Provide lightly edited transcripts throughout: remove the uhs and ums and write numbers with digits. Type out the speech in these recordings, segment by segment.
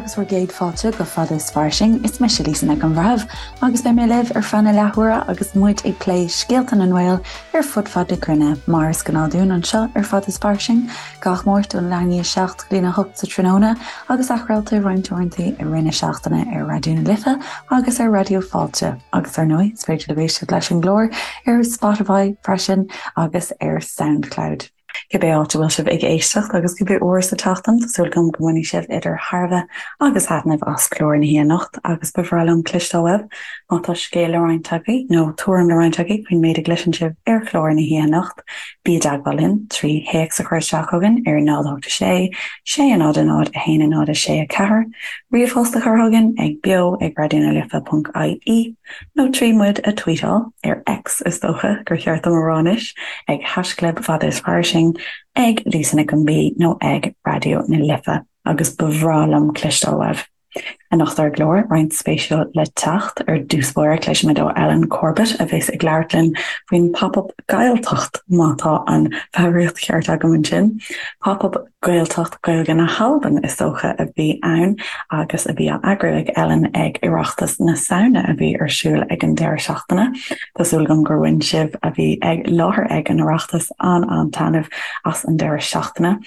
agus bhur gcéad fáilte go Fada is Fairsing. Is mise Lisa Nic an Bhreithimh agus beidh mé libh ar feadh na leathuaire agus muid ag plé scéalta na nGael ar fud fad na cruinne, mar is gnáth dúinn anseo ar Fada is Fairsing, gach Máirt ón leath i ndiaidh 7 go dtína 8 sa tráthnóna agus athchraolta roinnt uaireanta i rith na seachtaine ar Raidió na Life agus ar Raidió Fáilte. Agus ar ndóigh, is féidir libh éisteacht leis an gclár ar Spotify freisin agus ar Soundcloud. Cibé áit a bhfuil sibh ag éisteacht agus cibé uair sa tseachtain, tá súil agam go mbainfidh sibh idir thairbhe agus thaitneamh as clár na hoíche anocht agus ba bhreá liom cloisteáil uaibh má tá scéal le roinnt agaibh nó tuairim le roinnt agaibh faoin méid a gcloiseann sibh ar chlár na hoíche anocht. Bí i dteagmháil linn trí théacs a chur isteach chugainn ar 0 8 6 6 0 0 1 0 6 4, ríomhphost a chur chugainn ag beo ag raidionalife.ie. Nó trí muid a tweetáil, ar X is dócha gur cheart dom a rá anois, ag haischlib Fada is Fairsing, ag Lisa Nic an B nó ag Raidió na Life agus ba bhreá liom cloisteáil uaibh. Anocht ar an gclár, roinnt spéisiúil le teacht. Ar dtús báire, cloisfimid ó Ellen Corbett a bheas ag labhairt linn faoin Pop-Up Gaeltacht, má tá an foghraíocht cheart agam ansin. Pop-Up Gaeltacht Gaeilge na hAlban is dócha a bhí ann agus a bhí á eagrú ag Ellen ag Oireachtas na Samhna a bhí ar siúl ag an deireadh seachtaine. Tá súil agam gur bhain sibh a bhí ag láthair ag an Oireachtas an-an-taitneamh as an deireadh seachtaine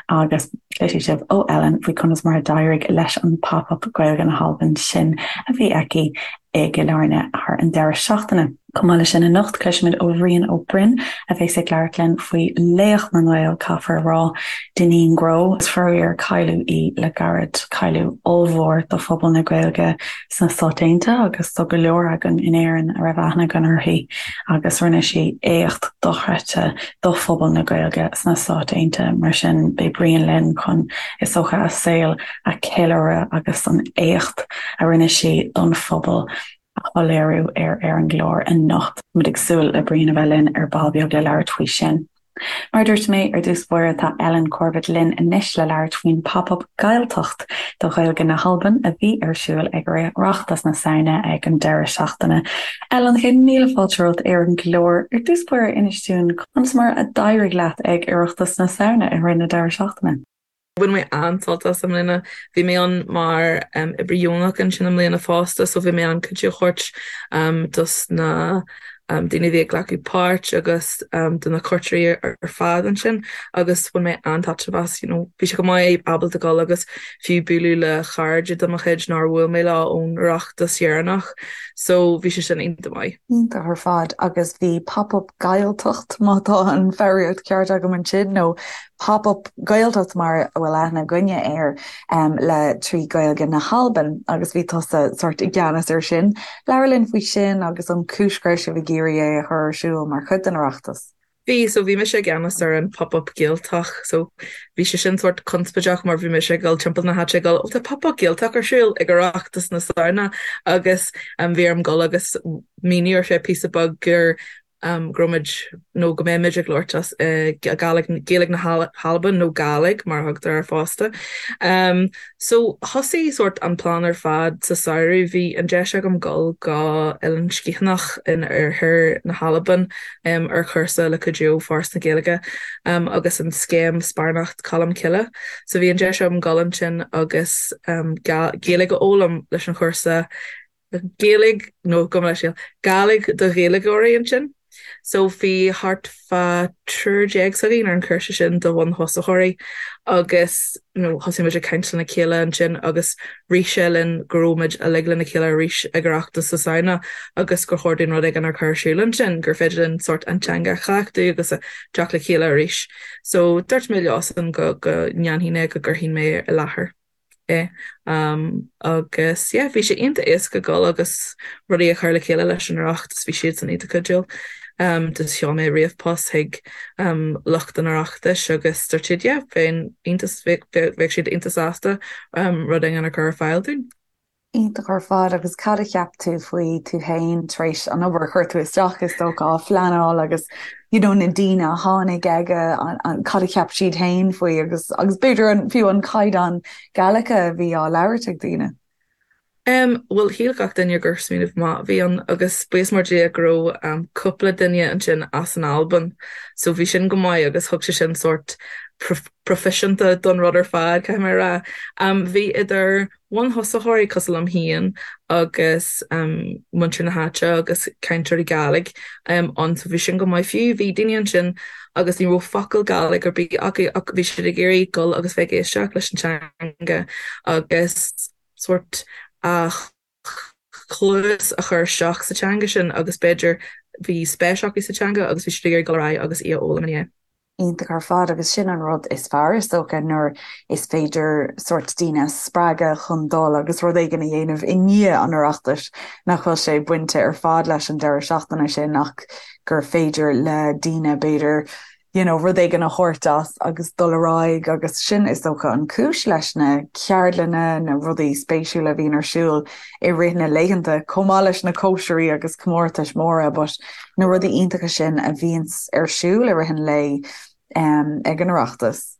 agus cloisfidh sibh ó Ellen faoi conas mar a d'éirigh leis an Pop-Up Gaeilge na hAlban sin a bhí aici i gCill Airne thar an deireadh seachtaine. Chomh maith leis sin anocht, cloisfimid ó Bhrian Ó Broin a bheas ag labhairt linn faoi laoch na nGael, caithfear a rá, Dineen Grow. Is faraor cailleadh í le gairid, cailleadh ollmhór do phobal na Gaeilge sna Stáit Aontaithe agus do go leor againn in Éirinn a raibh aithne againn uirthi agus rinne sí éacht dochreidte do phobal na Gaeilge sna Stáit Aontaithe. Mar sin, beidh Brian linn chun, is dócha, a saol a cheiliúradh agus an éacht a rinne sí don phobal a shoiléiriú ar ar an gclár anocht. Muid ag súil le Brian a bheith linn ar ball beag le labhairt faoi sin. Mar a dúirt mé ar dtús báire tá Ellen Corbett linn anois le labhairt faoin Pop-Up Gaeltacht do Ghaeilge na hAlban a bhí ar siúl ag Oireachtas na Samhna ag an deireadh seachtaine. Ellen, céad míle fáilte romhat ar an gclár. Ar dtús báire inis dúinn conas mar a d'éirigh leat ag Oireachtas na Samhna i rith na deireadh seachtaine? Bhain mé an-sult as i mbliana. Bhí mé ann mar oibrí dheonach ansin i mbliana fosta so bhí mé ann cuidiú a thabhairt dos na daoine a bhí ag glacadh páirt agus do na cuairteoirí ar fad ansin agus bhain mé an-taitneamh as. You know, bhí sé go maith ábalta dul agus fiú bualadh le chairde de mo chuid nár bhuail mé leo ón Oireachtas dheireanach so bhí sé sin iontach maith. Iontach ar fad agus bhí Pop-Up Gaeltacht má tá an foghraíocht ceart agam ansin nó Pop-Up Gaeltacht mar a bhfuil aithne againne air le trí Gaeilge na hAlban agus bhí tusa sórt i gceannas air sin. Labhair linn faoi sin agus an chúis go raibh sibh ag iarraidh é a chur ar siúl mar chuid den Oireachtas. Bhí, so bhí mise i gceannas ar an Pop-Up Gaeltacht so bhí sé sin sórt conspóideach mar bhí mise ag dul timpeall na háite ag dul oh tá Pop-Up Gaeltacht ar siúl ag Oireachtas na Samhna agus bhí orm dul agus míniú ar feadh píosa beag gur go raibh muid, nó go mbeidh muid ag labhairt as Gàidhlig, Gaeilge na hAlban nó Gàidhlig mar a thugtar air fosta. So thosaigh sórt an plean ar fad sa samhradh. Bhí an deis agam dul go Eilean Sgitheanach in oirthear na hAlban ar chúrsa le cuidiú ó Foras na Gaeilge agus an scéim Sparánacht Cholm Cille. So bhí an deis agam dul ansin agus Gaeilge a fhoghlaim leis an chúrsa Gaeilge, nó gabh mo leithscéal, Gàidhlig do Ghaeilgeoirí ansin. So bhí thart fá triúr déag s'againn ar an chúrsa sin do bhun-thosaitheoirí agus you know thosaigh muid ag caint lena chéile ansin agus rith sé linn go raibh muid uilig lena chéile arís ag Oireachtas na Samhna agus gur chóir dúinn rud éigin a chur ar siúl ansin, gur féidir linn sórt an teanga a chleachtadh agus a teacht le chéile arís. So dúirt mé leosan go go ndéanfainn é, go gcuirfinn mé i láthair. é agus yeah bhí sé iontach éasca dul agus rudaí a chur le chéile leis an Oireachtas, bhí siadsan iontach cuidiúil. Just sheol mé ríomhphost chuig lucht an Oireachtais agus dúirt siad yeah bheinn iontach bheadh siad iontach sásta rud éigin a chur ar fáil dúinn. Iontach ar fad agus cad a cheap tú faoi tú féin tar éis an obair a chuir tú isteach is dócha á phleanáil agus you know na daoine a tháinig aige an cad a cheap siad féin faoi agus agus b'fhéidir an fiú an caighdeán Gaeilge a bhí á labhairt ag daoine. Em bhuel shíl gach duine gur smaoineamh maith a bhí ann agus buíochas mór Dia go raibh um cúpla duine ansin as an Albain so bhí sin go maith agus thug sé sin sórt proifisiúnta don rud ar fad caithfidh mé a rá. Um bhí idir. bhunthosaitheoirí cosúil liom féin agus muintir na háite agus cainteoirí Gàidhlig ann so bhí sin go maith fiú. Bhí daoine ansin agus ní raibh focal Gàidhlig ar bith acu ach bhí siad ag iarraidh dul agus bheith ag éisteacht leis an teanga agus sórt a chluas a chur isteach sa teanga sin agus b'fhéidir bhí spéis acu sa teanga agus bhí siad ag iarraidh dul ar aghaidh agus í a fhoghlaim ina dhiaidh. Iontach ar fad agus sin an rud is fearr is dócha nuair is féidir sórt daoine a spreagadh chun dul agus rud éigin a dhéanamh i ndiaidh an Oireachtais nach bhfuil sé bainte ar fad leis an deireadh seachtaine sin ach gur féidir le daoine b'fhéidir you know, rud éigin a thabhairt as agus dul ar aghaidh agus sin is dócha an cúis leis na ceardlanna, na rudaí spéisiúla a bhíonn ar siúl i rith na laethanta, chomh maith leis na cóisirí agus comórtais mhóra but na rudaí iontacha sin a bhíonns ar siúl i rith an lae ag an Oireachtas.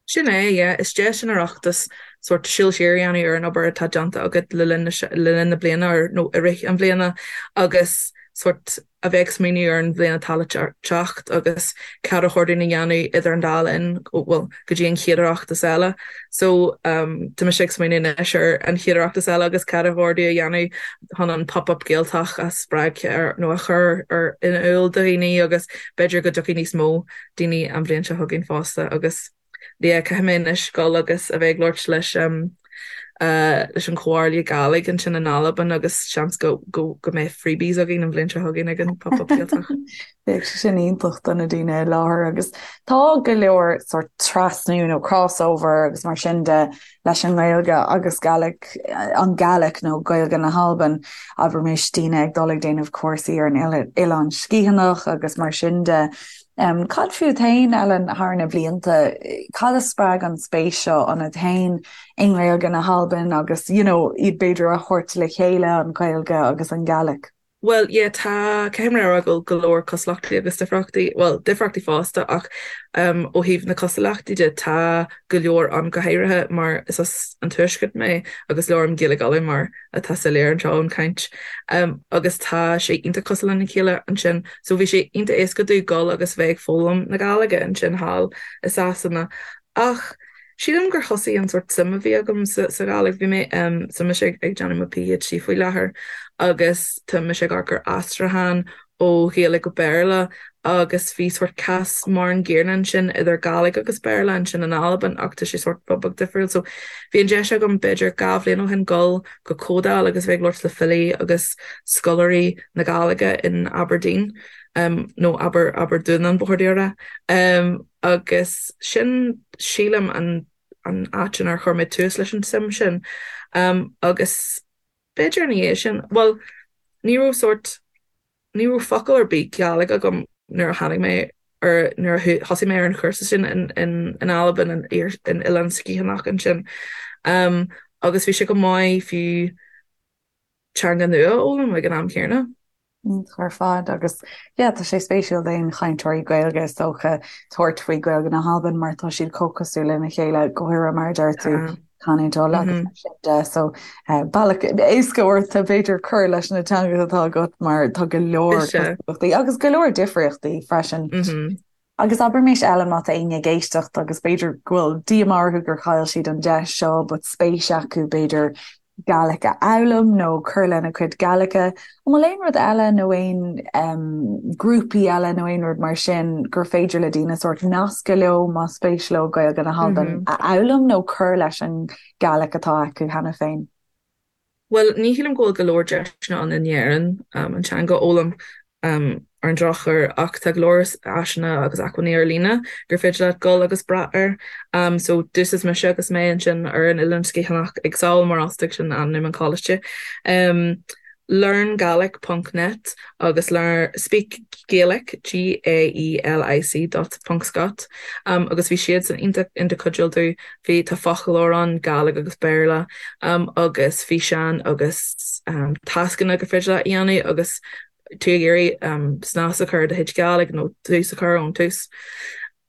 Sin é, yeah. Is deis an Oireachtas sórt siúl siar a dhéanamh ar an obair atá déanta agat le linn le linn na bliana nó i rith an bhliana agus sórt a bheith ag smaoineamh ar an bhliain atá le teacht agus cad ar chóir dúinn a dhéanamh idir an dá linn, bhuel, go dtí an chéad Oireachtas eile. So, tá mise ag smaoineamh anois ar an chéad Oireachtas eile agus cad ar chóir dúinn a dhéanamh chun an Pop-Up Gaeltacht a spreagadh nó a chur ar in iúl do dhaoine agus b'fhéidir go dtiocfaidh níos mó daoine an bhliain seo chugainn fosta agus yeah caithfidh mé anois dul agus a bheith ag labhairt leis leis an Chomhairle Gàidhlig ansin in Albain agus seans go go go mbeidh freebies againn an bhliain seo chugainn ag an Pop-Up Gaeltacht. Bheadh sé sin iontach do na daoine i láthair agus tá go leor sórt trasnú nó crossover agus mar sin de leis an nGaeilge agus Gaelic, an Gàidhlig nó Gaeilge na hAlban, abraimis daoine ag dul ag déanamh cúrsaí ar an Oileán Sgitheanach agus mar sin de. Cad fút féin, Ellen, thar na blianta, cad a spreag an spéis seo ionat féin i nGaeilge na hAlban agus, you know, iad b'fhéidir a thabhairt le chéile, an Ghaeilge agus an Gàidhlig? Bhuel, yeah, tá, caithfidh mé a rá go bhfuil go leor cosúlachtaí agus difríochtaí, bhuel, difríochtaí fosta ach ó thaobh na cosúlachtaí de, tá go leor ann, go háirithe mar is as an Tuaisceart mé agus labhraím Gaeilge Uladh mar atá soiléir anseo ón chaint agus tá sé iontach cosúil lena chéile ansin. So bhí sé iontach éasca domh dul agus bheith ag foghlaim na Gàidhlige ansin thall i Sasana ach Sílim gur thosaigh an sórt suim a bhí agam sa Ghàidhlig. Bhí mé, tá mise ag déanamh mo PhD faoi láthair agus tá mise ag amharc ar aistriúchán ó Ghaeilge go Béarla agus bhí sórt cás mar an gcéanna ansin idir Gàidhlig agus Béarla ansin in Albain ach tá sé sórt rud beag difriúil. So bhí an deis agam b'fhéidir 2 bhliain ó shin dul go comhdháil agus bheith ag labhairt le filí agus scoláirí na Gàidhlige in Aberdeen nó Aber Aberdunan ba chóir domh a rá. Agus sin, sílim, an an áit inar chuir mé tús leis an tsuim sin. Agus b'fhéidir ina dhiaidh sin, bhuel, ní raibh sórt, ní raibh focal ar bith Gàidhlig agam nuair a tháinig mé ar, nuair a thosaigh mé ar an chúrsa sin in, in, in Albain, in, in Oileán Sgitheanach ansin. Agus bhí sé go maith fiú teanga nua a fhoghlaim ag an am céanna. Iontach ar fad agus yeah tá sé spéisiúil d'aon chainteoirí Gaeilge is dócha tabhairt faoi Gaeilge na hAlban mar tá siad chomh cosúil lena chéile go háirithe mar a deir tú canúint Uladh agus mar sin de so bealach éasca ort b'fhéidir cur leis na teangacha atá agat mar tá go leor cosúlachtaí agus go leor difríochtaí freisin. Agus abraimis Ellen má tá éinne ag éisteacht agus b'fhéidir go bhfuil díomá orthu gur chaill siad an deis seo but spéis acu b'fhéidir Gaelic a fhoghlaim nó cur lena cuid Gaeilge, an bhfuil aon rud eile nó aon um, grúpaí eile nó aon rud mar sin gur féidir le daoine sórt nascadh leo má spéis leo Gaeilge na hAlban mm -hmm. a fhoghlaim nó cur leis an Gaelic atá acu cheana féin? Bhuel, ní shílim go bhfuil go leor deiseanna ann in Éirinn an teanga a fhoghlaim ar an drochuair ach tá go leor áiseanna agus acmhainní ar líne gur féidir leat dul agus brath air. So d'úsáid mise agus mé ansin ar an Oileán Sgitheanach ag Sabhal Mòr Ostaig, sin ainm an choláiste. Learngaelic ponc net agus learn Speak Gaelic, G-A-E-L-I-C dot ponc scot agus bhí siadsan iontach iontach cuidiúil domh. Bhí tá foclóir ann, Gàidhlig agus Béarla, agus físeáin agus tascanna gur féidir leat a dhéanamh agus tú ag iarraidh snas a chur ar do chuid Gàidhlig nó tús a chur ón tús.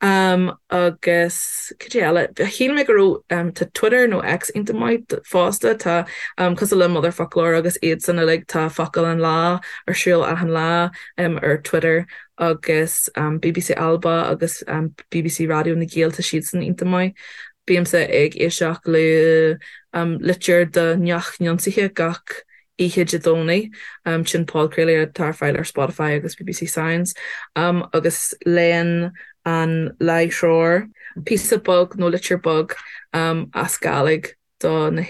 Agus cad é eile? Shíl mé go raibh tá Twitter nó X iontach maith fosta. Tá cosúil le Motherfoclóir agus iadsan uilig, tá focal an lá ar siúl achan lá ar Twitter agus BBC Alba agus BBC Raidió na Gael, tá siadsan iontach maith. Bímse ag éisteacht le litir do Neach Neansaithe gach oíche Dé Domhnaigh, sin podchraoladh atá ar fáil ar Spotify agus BBC Sounds, agus léann an láithreoir píosa beag nó litir beag as Gàidhlig do na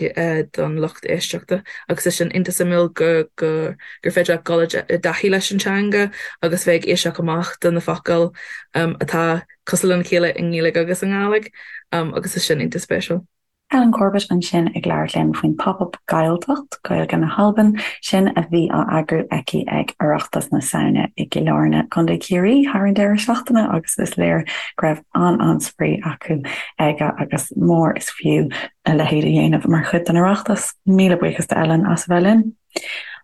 don lucht éisteachta agus tá sin iontach suimiúil go go gur féidir leat dul i dtaithí leis an teanga agus bheith ag éisteacht amach do na focail atá cosúil lena chéile i nGaeilge agus i nGàidhlig agus tá sin iontach spéisiúil. Ellen Corbett ansin ag labhairt linn faoin Pop-Up Gàidhealtachd, Gaeilge na hAlban, sin a bhí á eagrú aici ag Oireachtas na Samhna i gCill Airne, Co. Chiarraí thar an deireadh seachtaine agus is léir go raibh an-an-spraoi acu aige agus mór is fiú a leithéid a dhéanamh mar chuid den Oireachtas. Míle buíochas d'Ellen as a bheith linn.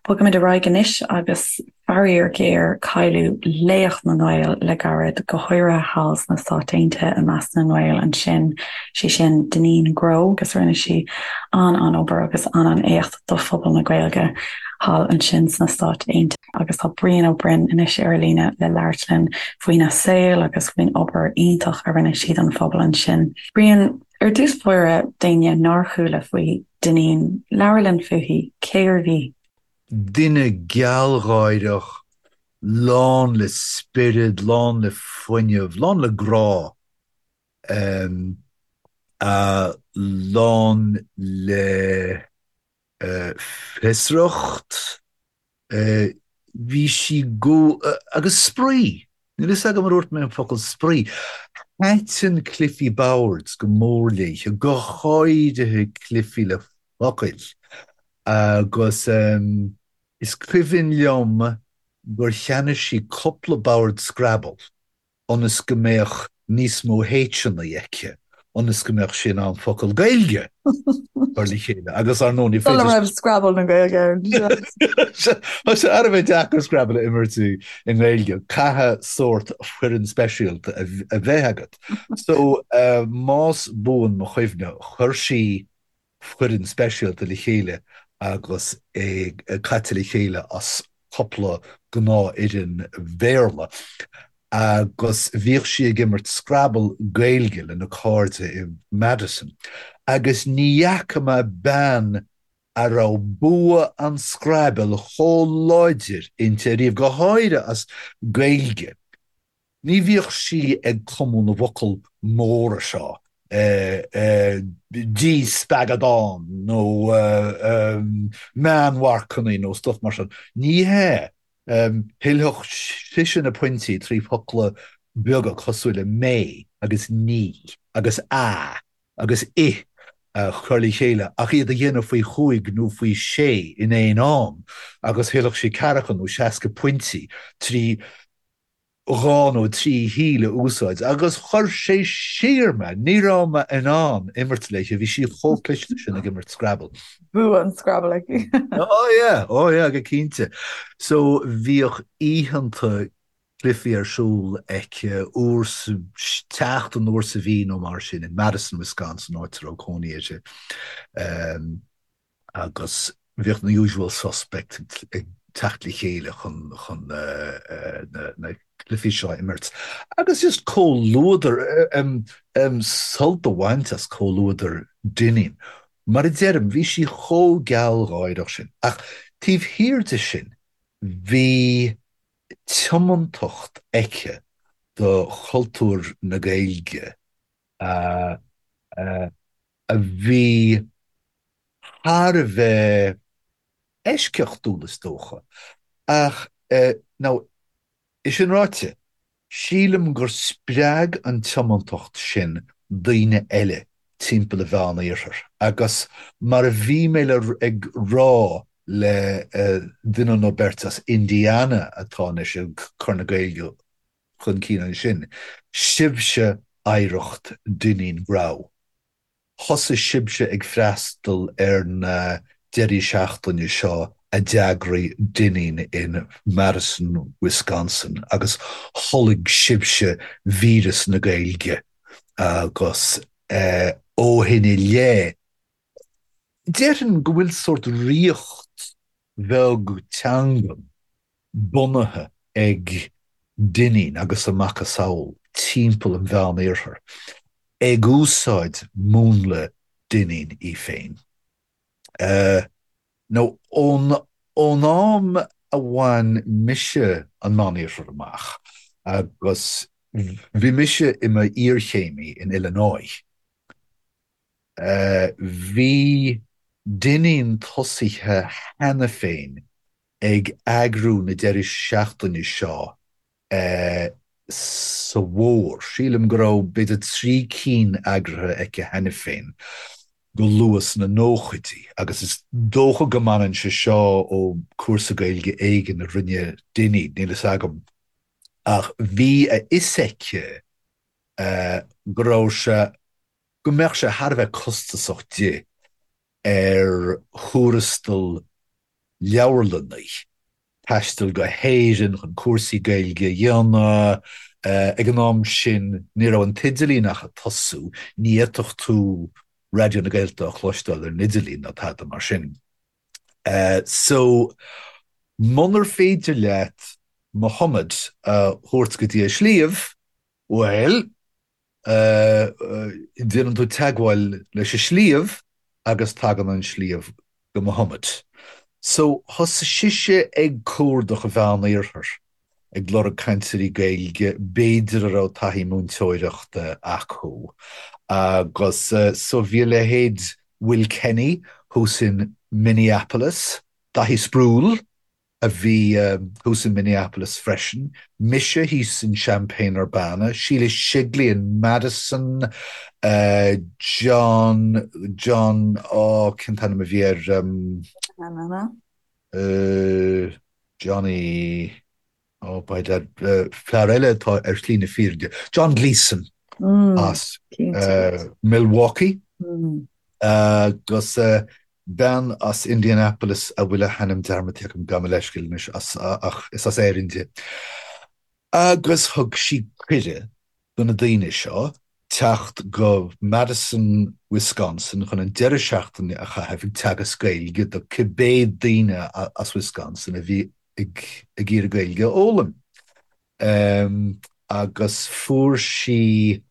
Bogaimid ar aghaidh anois agus faraor géar cailleadh laoch na nGael le gairid, go háirithe thall sna Stáit Aontaithe i measc na nGael ansin, sí sin Dineen Grow agus rinne sí an-an-obair agus an-an-éacht do phobal na Gaeilge thall ansin sna Stáit Aontaithe agus tá Brian Ó Broin anois ar an líne le labhairt linn faoina saol agus faoin obair iontach a rinne sí don phobal ansin. Brian, ar dtús báire, d'éinne nár chuala faoi Dineen, labhair linn fúithi, cérbh í? Duine gealgháireach, lán le spiorad, lán le fuinneamh, lán le grá, lán le fiosracht, Bhí sí go, agus spraoi! Níl fhios agam ar dhúirt mé an focal spraoi. Thaitin cluichí boird go mór léi, go háirithe cluichí le focail. Agus is cuimhin liom gur cheannaigh sí cúpla bord Scrabble. ionas go mbeadh níos mó H-anna aici, ionas go mbeadh sí in ann focal Gaeilge a chur le chéile agus ar ndóigh ní féidir. Sula raibh Scrabble na Gaeilge ann. Tá sé thar a bheith deacair Scrabble a imirt i nGaeilge, caithfidh sórt foireann speisialta a bheith agat. So, más buan mo chuimhne, chuir sí foireann speisialta le chéile agus é caite le chéile as cúpla gnáthfhoireann Bhéarla agus bhíodh sí ag imirt Scrabble Gaeilge lena cairde i Madison agus ní fhaca mé bean a raibh bua an Scrabble chomh láidir inti ariamh, go háirithe as Gaeilge. Ní bhíodh sí ag cumadh na bhfocal móra seo, díspeagadán nó meánmharcanna nó stuff mar sin. Ní hea. Thuillfeadh sise na pointí trí fhocla beaga cosúil le mé agus ní agus a agus i a chur le chéile ach iad a dhéanamh faoi chúig nó faoi shé in aon am agus thuillfeadh sí ceathracha nó seasca pointí trí dhá nó trí thíl a úsáid agus chuir sé siar mé, ní raibh mé in ann imirt léi, bhí sí chomh cliste sin ag imirt Scrabble. Bua an Scrabble aici. Oh yeah, oh yeah, go cinnte. So bhíodh oícheanta cluichí ar siúl aici uair sa tseachtain, uair sa mhí nó mar sin in Madison, Wisconsin, áit a raibh cónaí uirthi. Agus bhíodh na usual suspects ag teacht le chéile chun chun na cluichí seo a imirt. Agus just comhluadar, sult a bhaint as comhluadar Dineen. Mar a deirim, bhí sí chomh gealgháireach sin. Ach taobh thiar de sin, bhí tiomantacht aici do chultúr na Gaeilge a a bhí thar a bheith eisceachtúil, is dócha. Ach, now, é sin ráite, sílim gur spreag an tiomantacht sin daoine eile timpeall an Mheán-Iarthair agus mar a bhí mé le ag rá le duine nó beirt as Indiana atá anois ag cur na Gaeilge chun cinn ansin, sibhse oidhreacht Dineen Grow. Thosaigh sibhse ag freastal ar na deirí seachtaine seo a d'eagraigh Dineen in Madison, Wisconsin agus tholg sibhse víreas na Gaeilge agus ó shin i leith, déarfainn go bhfuil sórt ríocht bheag teangan bunaithe ag Dineen agus a macasamhail timpeall an Mheán-Iarthair. Ag úsáid múnla Duinnín í féin. Nó ón ón am a bhain mise an Meánoirthear amach, agus bhí mise i m'iarchéimí in Illinois, bhí Duinnín tosaithe cheana féin ag eagrú na deireadh seachtaine seo sa bhfómhar. Sílim go raibh b'fhéidir 3 cinn eagraithe aici cheana féin go luath sna nóchaidí agus is dócha go mbaineann sé seo ó cúrsa Gaeilge éigin a rinne Dinny, níl fhios agam. Ach bhí a fhios aici go raibh sé, go mbeadh sé thar a bheith costasach di ar thuarastal leabharlannaí taisteal go hÉirinn chun cúrsaí Gaeilge a dhéanamh. Ag an am sin ní raibh an t-idirlíon ach ag tosú, ní fhéadfadh tú Raidió na Gaeltachta a chloisteáil ar an idirlíon ná tada mar sin. So, munar féidir leat Muhammad a thabhairt go dtí an sliabh, bhuel, déanann tú teagmháil leis an sliabh agus tagann an sliabh go Muhammad. So, thosaigh sise ag cuardach an Mheán-Iarthair, ag lorg cainteoirí Gaeilge, b'fhéidir a raibh taithí múinteoireachta acu. Agus so bhí a leithéid Will Kenny thuas in Minneapolis, Daithí Sproule, a bhí thuas in Minneapolis freisin, mise thíos in Champaign-Urbana, Sheila Shigley in Madison, John, John, oh, cén t-ainm a bhí air, Johnny, oh, by dad, fear eile atá ar shlí na fírinne, John Gleeson as Milwaukee agus Bean as Indianapolis a bhfuil a hainm dearmadta agam, gabh mo leithscéal anois, ach is as Éirinn di. Agus thug sí cuireadh do na daoine seo teacht go Madison, Wisconsin chun an deireadh seachtaine a chaitheamh ag teagasc Gaeilge do cibé daoine as Wisconsin a bhí ag iarraidh Gaeilge a fhoghlaim. Agus fuair sí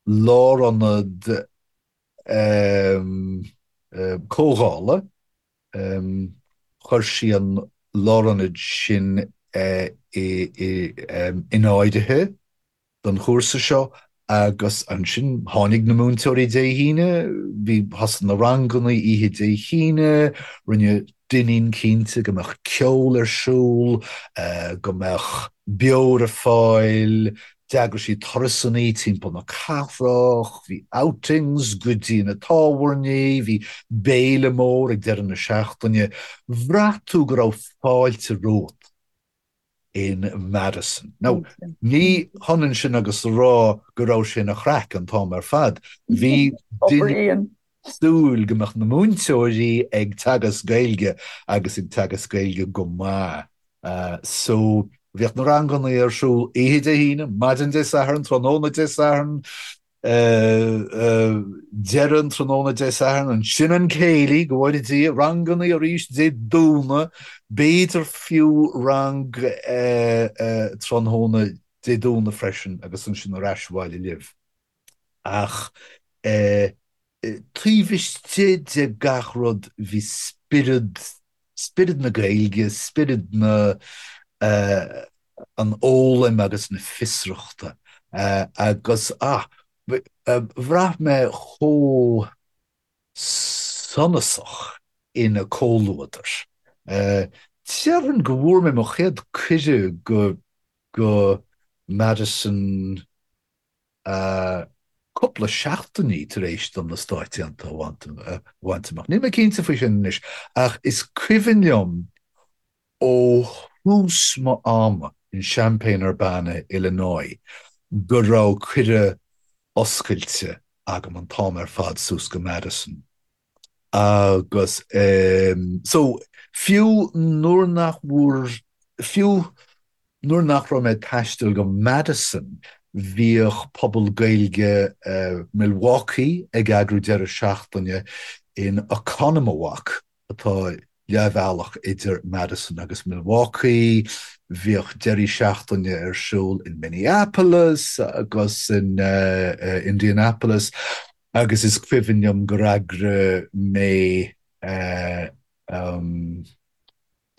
lárionad comhdhála. Chuir sí an lárionad sin in áirithe don chúrsa seo agus ansin tháinig na múinteoirí Dé hAoine, bhí, thosaigh na ranganna oíche Dé hAoine, rinne Duinnín cinnte go mbeadh ceol ar siúl, go mbeadh beoir ar fáil, D'eagraigh sí turasanna timpeall na cathrach, bhí outings go dtí na tábhairní, bhí béile mór ag deireadh na seachtaine. Bhraith tú go raibh fáilte romhat in Madison. Now, ní hionann sin agus a rá go raibh sé ina chraic an t-am ar fad. Bhí duine súil go mbeadh na múinteoirí ag teagasc Gaeilge agus ag teagasc Gaeilge go maith. So, bhíodh na ranganna ar siúl oíche Dé hAoine, maidin Dé Sathairn, tráthnóna Dé Sathairn, deireadh an tráthnóna Dé Sathairn, ansin an céilí, go bhfóire Dia, ranganna arís Dé Domhnaigh, b'fhéidir fiú rang tráthnóna Dé Domhnaigh freisin agus ansin ar ais abhaile libh. Ach taobh istigh de gach rud bhí spiorad, spiorad na Gaeilge, spiorad na, an fhoghlaim agus na fiosrachta agus, ah, bhraith mé chomh sonasach ina comhluadar. Déarfainn go bhfuair mé mo chéad cuireadh go, go Madison, cúpla seachtainí tar éis dom na Stáit Aontaithe a bhaint amach. Níl mé cinnte faoi sin anois, ach is cuimhin liom ó thús mo ama in Champaign-Urbana, Illinois, go raibh cuireadh oscailte agam an t-am ar fad suas go Madison. Agus so, fiú nuair nach bhfuair, fiú nuair nach raibh mé ag taisteal go Madison, bhíodh pobal Gaeilge Milwaukee ag eagrú deireadh seachtaine in Oconomowoc, atá. leathbhealach idir Madison agus Milwaukee. Bhíodh deirí seachtaine ar siúl in Minneapolis agus in Indianapolis agus is cuimhin liom gur eagraigh mé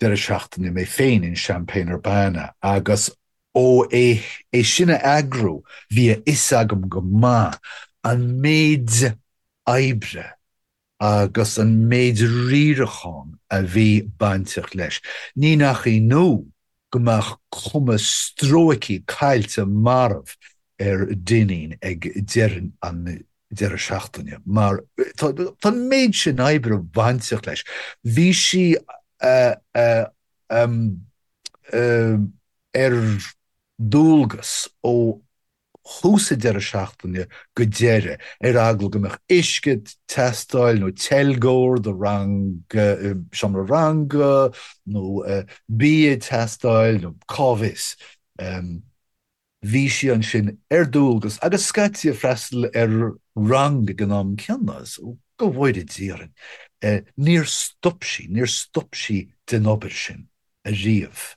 deireadh seachtaine mé féin in Champaign-Urbana agus ó é sin a eagrú bhí a fhios agam go maith an méid oibre agus an méid riaracháin a bhí bainteach leis. Ní nach ionadh go mbeadh cuma stróicthe caillte marbh ar Dineen ag deireadh an deireadh seachtaine mar tá an méid sin oibre bainteach leis. Bhí sí ar dualgas ó thús an deireadh seachtaine go deireadh, ar eagla go mbeadh uisce ag teastáil nó teilgeoir do rang, seomra ranga nó bia ag teastáil nó cá bhfios. Bhí sí ansin ar dualgas agus scaití ag freastal ar rang ag an am céanna, so go bhfóire Dia orainn, níor stop sí, níor stop sí den obair sin ariamh.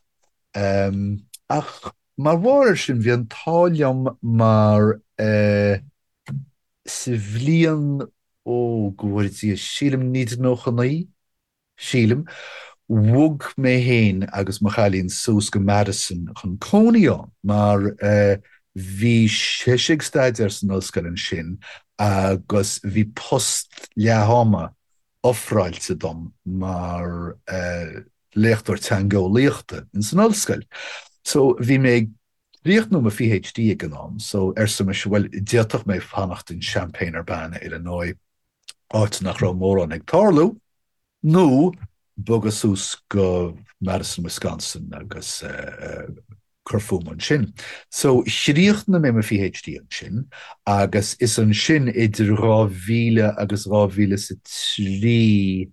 Ach mar bharr air sin, bhí an t-ádh liom mar sa bhliain, ó, go bhfóire Dia, sílim 1999, sílim, bhog mé féin agus mo chailín suas go Madison chun cónaí ann mar bhí sise ag staidéar san ollscoil ansin agus bhí post leath-ama ofráilte dom mar léachtóir teangeolaíochta ins an ollscoil. So bhí mé ag críochnú mo PhD ag an am so arsa mise bhuel d'fhéadfadh mé fanacht in Champaign-Urbana, Illinois áit nach raibh mórán ag tarlú, nó bogadh suas go Madison, Wisconsin agus cur fúm ansin. So, chríochnaigh mé mo PhD ansin agus is ansin idir 2000 agus 2003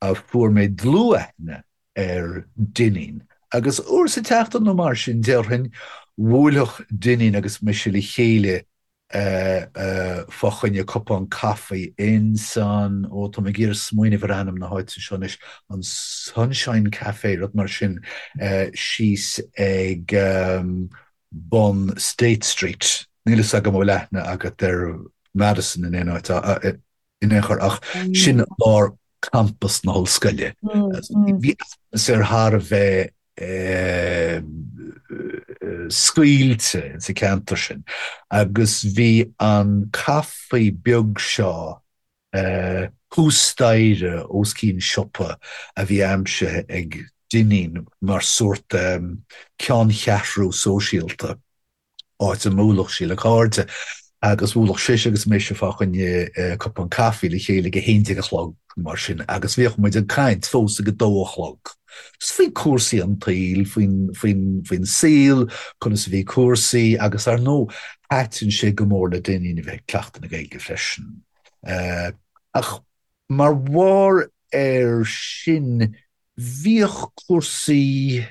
a fuair mé dlúthaithne ar Dineen. Agus uair sa tseachtain nó mar sin, déarfainn, bhuailfeadh Dineen agus mise le chéile fá choinne cupán caife ins an, ó tá mé ag iarraidh smaoineamh ar ainm na háite seo anois, an Sunshine Café, rud mar sin, síos ag bun State Street. Níl fhios agam an bhfuil aithne agat ar Madison in aon áit, in aon chor, ach sin lár campas na hollscoile. Bhí atmaisféar thar a bheith scaoilte sa cheantar sin agus bhí an caife beag seo thuas staighre os cionn siopa a bhí aimsithe ag Dineen mar sórt ceanncheathrú sóisialta. áit a mbuailfeadh sí le cairde, agus bhuailfeadh sise agus mise fá choinne cupán caife le chéile ag a haon déag a chlog, mar sin, agus bhíodh muid ag caint fós ag a dó a chlog, just faoi cúrsaí an tsaoil, faoin, faoin, faoin saol, conas a bhí cúrsaí, agus ar ndóigh, thaitin sé go mór le Dineen a bheith ag cleachtadh na Gaeilge freisin. Ach mar bharr air sin, bhíodh cúrsaí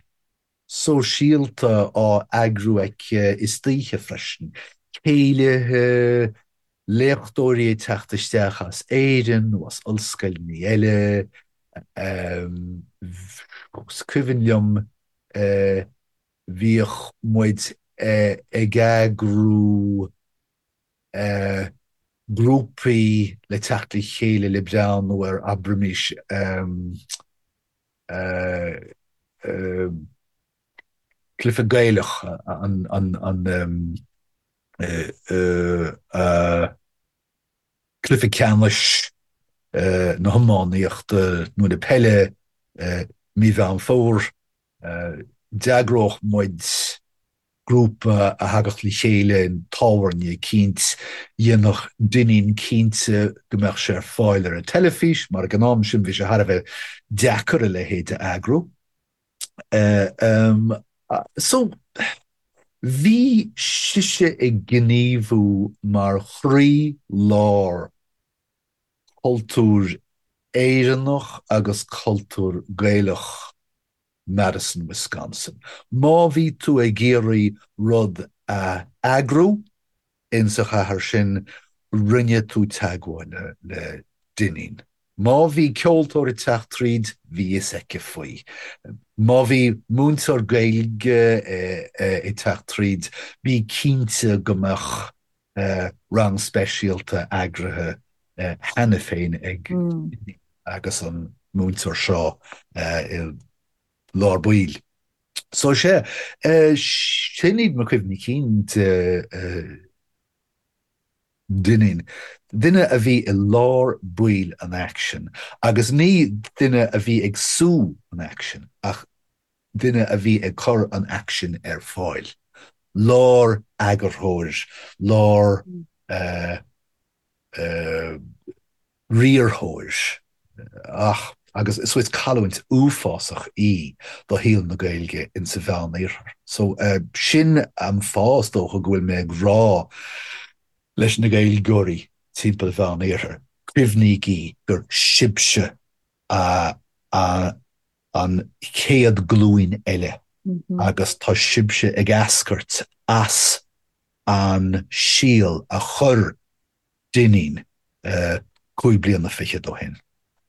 sóisialta á eagrú aici istoíche freisin, céilithe, léachtóirí ag teacht isteach as Éirinn nó as ollscoileanna eile. Is cuimhin liom bhíodh muid ag eagrú grúpaí le teacht le chéile le breathnú ar, abraimis, cluiche Gaelach an cluiche ceannais na hiománaíochta nó na peile mí Mheán Fómhair. D'eagródh muid grúpa a thagadh le chéile in tábhairne eicínt, dhéanfadh Dineen cinnte go mbeadh sé ar fáil ar an teilifís, mar ag an am sin bhí sé thar a bheith deacair a leithéid a eagrú. So, bhí sise ag gníomhú mar chroí-lár cultúr Éireannach agus cultúr Gaelach Madison, Wisconsin. Má bhí tú ag iarraidh rud a eagrú insa chathair sin, rinne tú teagmháil le Dineen. Má bhí ceoltóir ag teacht tríd, bhí fhios aici faoi. Má bhí múinteoir Gaeilge ag teacht tríd, bí cinnte go mbeadh rang speisialta eagraithe cheana féin ag agus an múinteoir seo i lár baill. So sea, sin iad mo chuimhní cinn de Dineen. Duine a bhí i lár baill an aicsin, agus ní duine a bhí ag sú an aicsin, ach duine a bhí ag cur an aicsin ar fáil. Lár-eagarthóir, lár riarthóir. Ach, agus so is cailliúint uafásach í do shaol na Gaeilge insa Mheán-Iarthar. So sin an fáth is dócha go bhfuil mé ag rá leis na Gaeilgeoirí timpeall an Mheán-Iarthair, cuimhnígí gur sibhse an chéad glúin eile agus tá sibhse ag eascairt as an síol a chuir Dineen 25 bliana ó shin.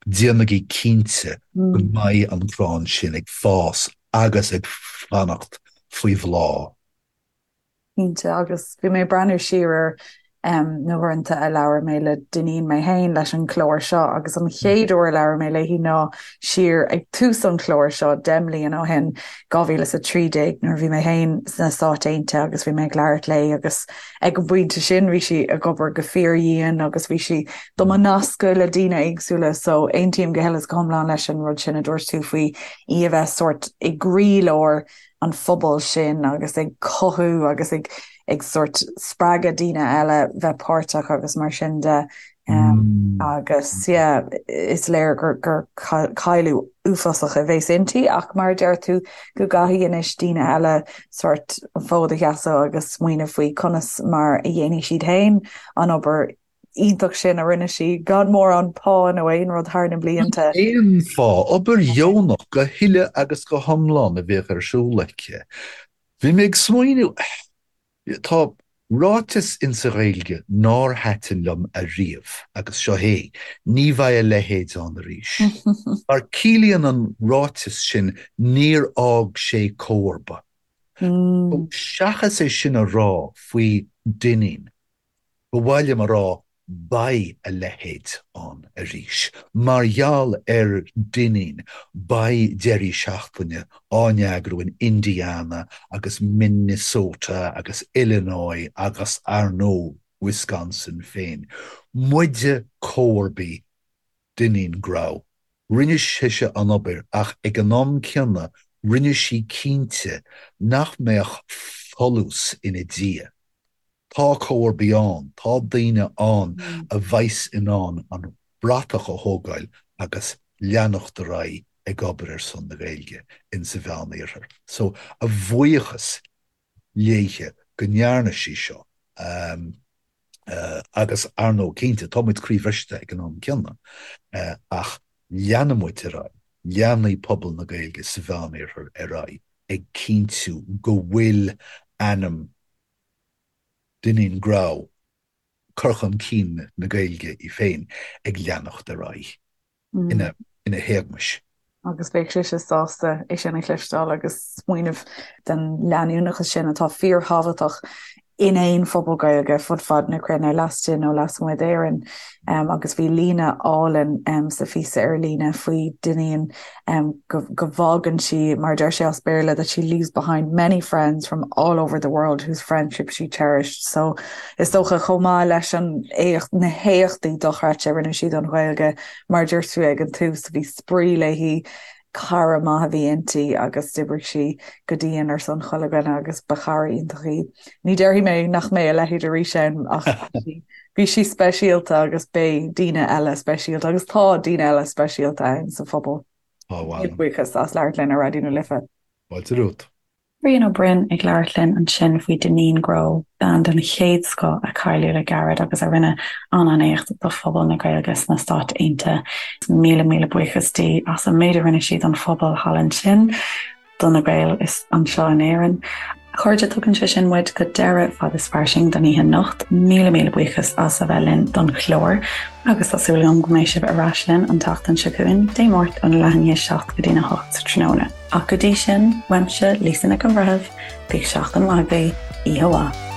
Déanaigí cinnte go mbeidh an crann sin ag fás agus ag fanacht faoi bhláth. Cinnte, agus bhí mé ag breathnú siar ar na huaireanta a labhair mé le Dineen mé féin leis an chlár seo agus an chéad uair a labhair mé léi ná siar ag tús an chláir seo 10 mbliana ó shin, 2013, nuair a bhí mé féin sna Stáit Aontaithe agus bhí mé ag labhairt léi agus Ag an bpointe sin bhí sí ag obair go fíordhian agus bhí sí do mo nascadh le daoine éagsúla so aontaím go huile is go hiomlán leis an rud sin a dúirt tú faoi í a bheith sórt i gcroílár an phobail sin agus ag cothú agus ag ag sórt spreagadh daoine eile bheith páirteach agus mar sin de. Agus yeah, is léir gur gur cailleadh uafásach a bheas inti ach mar a deir tú go gcaithfidh anois daoine eile sórt an fód a sheasamh agus smaoineamh faoi conas mar a dhéanfaidh siad féin an obair iontach sin a rinne sí gan mórán pá nó aon rud thar na blianta. Aon phá, obair dheonach go huile agus go hiomlán a bhíodh ar siúl aici. Bhí mé ag smaoineamh, Tá ráiteas insa Ghaeilge nár thaitin liom ariamh agus seo é, ní bheidh a leithéid ann arís. Mar ciallaíonn an ráiteas sin níor fhág sé comharba. Seachas é sin a rá faoi Dineen, ba mhaith liom a rá Beidh a leithéid ann arís. Mar gheall ar Dineen, beidh deirí seachtaine á n-eagrú in Indiana agus Minnesota agus Illinois agus, ar ndóigh, Wisconsin féin. Muide comharbaí Dineen Grow. Rinne sise an obair ach ag an am céanna rinne sí cinnte nach mbeadh folús ina diaidh. Tá comharbaí ann, tá daoine ann a bheas in ann an bratach a thógáil agus leanacht ar aghaidh ag obair ar son na Gaeilge in sa Mheán-Iarthar. So, a bhuíochas léithe go ndearna sí seo agus ar ndóigh cinnte, tá muid croíbhriste ag an am céanna ach leanfaidh muid ar aghaidh, leanfaidh pobal na Gaeilge sa Mheán-Iarthar ar aghaidh ag cinntiú go bhfuil ainm Dineen Grow, cur chun cinn na Gaeilge í féin ag leanacht ar aghaidh ina héagmais. Agus bheadh sise sásta é sin a chloisteáil agus smaoineamh den leanúnachas sin atá fíorthábhachtach in aon phobal Gaeilge fud fad na cruinne, laistigh nó lasmuigh d'Éirinn. Agus bhí líne álainn sa phíosa ar líne faoi Dineen go bhfágann sí, mar a deir sé as Béarla, that she leaves behind many friends from all over the world whose friendship she cherished. So is dócha chomh maith leis an éacht, na héachtaí dochreidte a rinne sí don Ghaeilge, mar a dúirt tú ag an tús, bhí spraoi léi, cara maith a bhí inti agus d'oibrigh sí go dian ar son chuile dhuine agus ba chara iontach í. Ní déarfaidh mé nach mbeidh a leithéid arís ann ach bhí sí speisialta agus beidh daoine eile speisialta agus tá daoine eile speisialta ann sa phobal. Tá bhuel. Buíochas as labhairt linn ar Raidió na Life. Fáilte romhat. Rian Ó Broin ag labhairt linn ansin faoi Dineen Grow, bean den chéad scoth a cailleadh le gairid agus a rinne an-an-éacht do phobal na Gaeilge sna Stáit Aontaithe. Míle míle buíochas di as an méid a rinne sí don phobal thall ansin. do na Gaeil is anseo in Éirinn. chairde, tugann sé sin muid go deireadh Fad is Fairsing don oíche anocht. Míle míle buíochas as a bheith linn don chlár agus tá súil agam go mbeidh sibh ar ais linn an tseachtain seo chugainn, Dé Máirt óna leath i ndiaidh a 7 go dtína 8 sa tráthnóna. Ach go dtí sin, uaimse, Lisa Nic an Bhreithimh, bíodh seachtain mhaith agaibh, oíche mhaith.